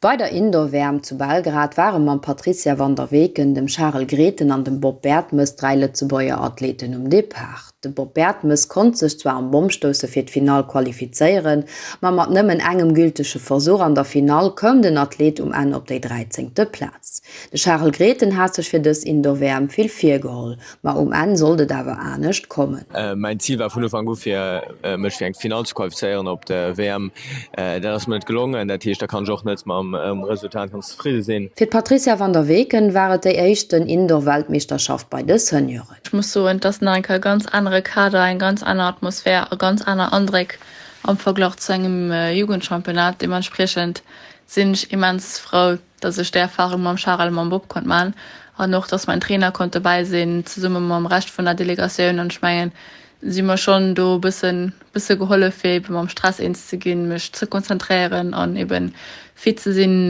Bei der Indoor-WM zu Belgrad ware mam Patrizia van der Weken, dem Charel Grethen an dem Bob Bertemes 3 Lëtzebuerger Athleten um Depart. De Bob Bertemes konnt sech zwar am Bommstousse fir d'Finall qualifizéieren, ma mat nëmmen engem gültege Versuch an der Finall koum den Athlet um Enn op déi dräizéngte Plaz. De Charel Grethen hat sech fir dës Indoor-WM vill virgeholl, Ma um Enn sollt et awer anescht kommen. Mäin Zil war vun Ufank u fir mech fir eng Finall ze qualifizéieren op der WM. Dat ass mir net gelongen, dat heescht da kann ech och net mam Resultat ganz zefridde sinn. Fir d'Patrizia van der Weken war et déi éischten Indoor-Weltmeeschterschaft bei de Senioren. Ech muss soen, et ass nach eng Kéier e ganz anere Kader, eng ganz aner Atmosphär a ganz aner Andréck am Verglach zu engem Jugendchampionnat. Deementspriechend sinn ech immens frou, dass ech déi Erfahrung mam Charel a mam Bob konnt man an och dass mein Trainer konnt dobäi sinn zesumme mam Rescht vun der Delegatioun an ech mengen si mer schonn do e bëssen bësse gehollef fir eben mam Stress eens ze ginn, mech ze konzentréieren an eben fit ze sinn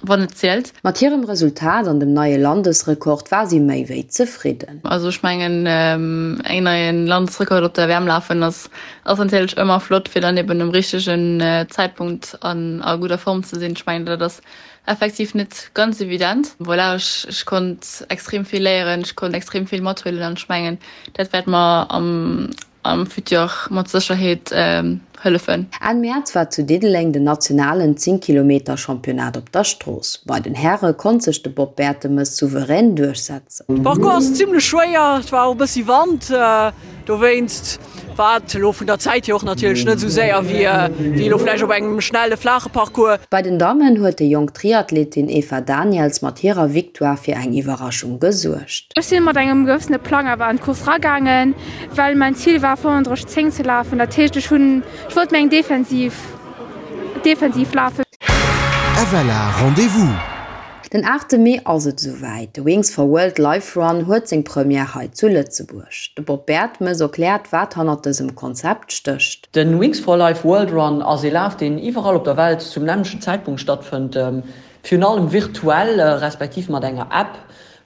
wann et zielt. Mat hirem Resultat an dem neie Landesrekord war si méi wéi zefridden. Also ech mengen eng neien Landesrekord op der WM lafen ass ass natierlech ëmmer flott fir dann eben um richtegen Zäitpunkt an a gudder Form ze sinn. Ech mengen dat ass effektiv net ganz evident. Voilà, ech ech konnt extrem vill léieren, ech konnt extrem vill mathuelen an ech mengen dat wäert mer am am Futur mat Sécherheet hëllefen. Enn Mäerz war zu Diddeleng den nationalen 10 Kilometer Championnat op der Strooss. Bei den Häre konnt sech de Bob Bertemes souverän duerchsetzen. De Parcours ass zimlech schwéier, et war och e bëssi Wand, dowéinst war et elo vun der Zäit hier och natierlech net esou séier wéi elo vläicht op engem schnelle flaache Parcours. Bei den Dammen huet déi jonk Triathletin Eva Daniels mat hirer Victoire fir eng Iwwerraschung gesuergt. Ech sinn mat engem gewëssene Plang awer an d'Course ragaangen, well mäin Zil war 35, 10 ze lafen. Dat heescht ech hunn, ech wollt méi eng defensiv, defensiv lafen. FLA Rendez-vous! Den 8 Mee ass et esouwäit, de Wings for World Life Run huet seng Première hei zu Lëtzebuerg. De Bob Bertemes erkläert, wat hannert dësem Konzept stécht. De Wings for Life World Run ass ee Laf, deen iwwerall op der Welt zum nämmlechten Zäitpunkt stattfënnt, virun allem virtuell, respektiv mat enger App,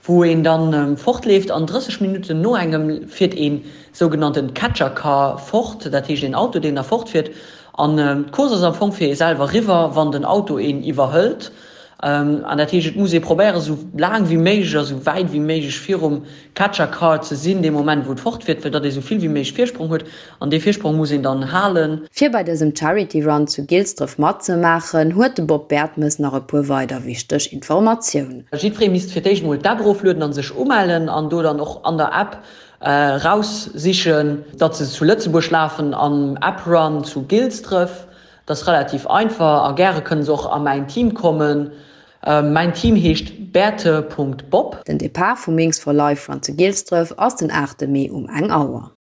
wou een dann fortleeft an 30 Minutten no engem fiert een sougenannten Catcher Car fort, dat heescht een Auto deen da fortfiert an d'Course ass am Fong fir ee selwer riwwer wann den Auto een iwwerhëlt an dat heescht et muss ee probéieren esou laang wéi méiglech a sou wäit wéi méiglech virum Catcher Car ze sinn dee Moment wou et fortfiert fir datt ee sou vill wéi méiglech Virsprong huet An dee Virsprong muss een dann halen. Fir bei dësem Charity Run zu Gilsdref matzemaachen, huet de Bob Bertemes nach e puer weider wichteg Informatiounen. Jiddweree misst fir d'éischt mol d'App eroflueden an sech umellen an do dann och an der App raussichen, datt se zu Lëtzebuerg lafen am App Run zu Gilsdref. Dat ass relativ einfach a gäre kënne se och a mäin Team kommen. Mäin Team heescht Berthe.bob. Den Depart vum Wings for Life Run zu Gilsdref ass den 8 Mee um eng Auer.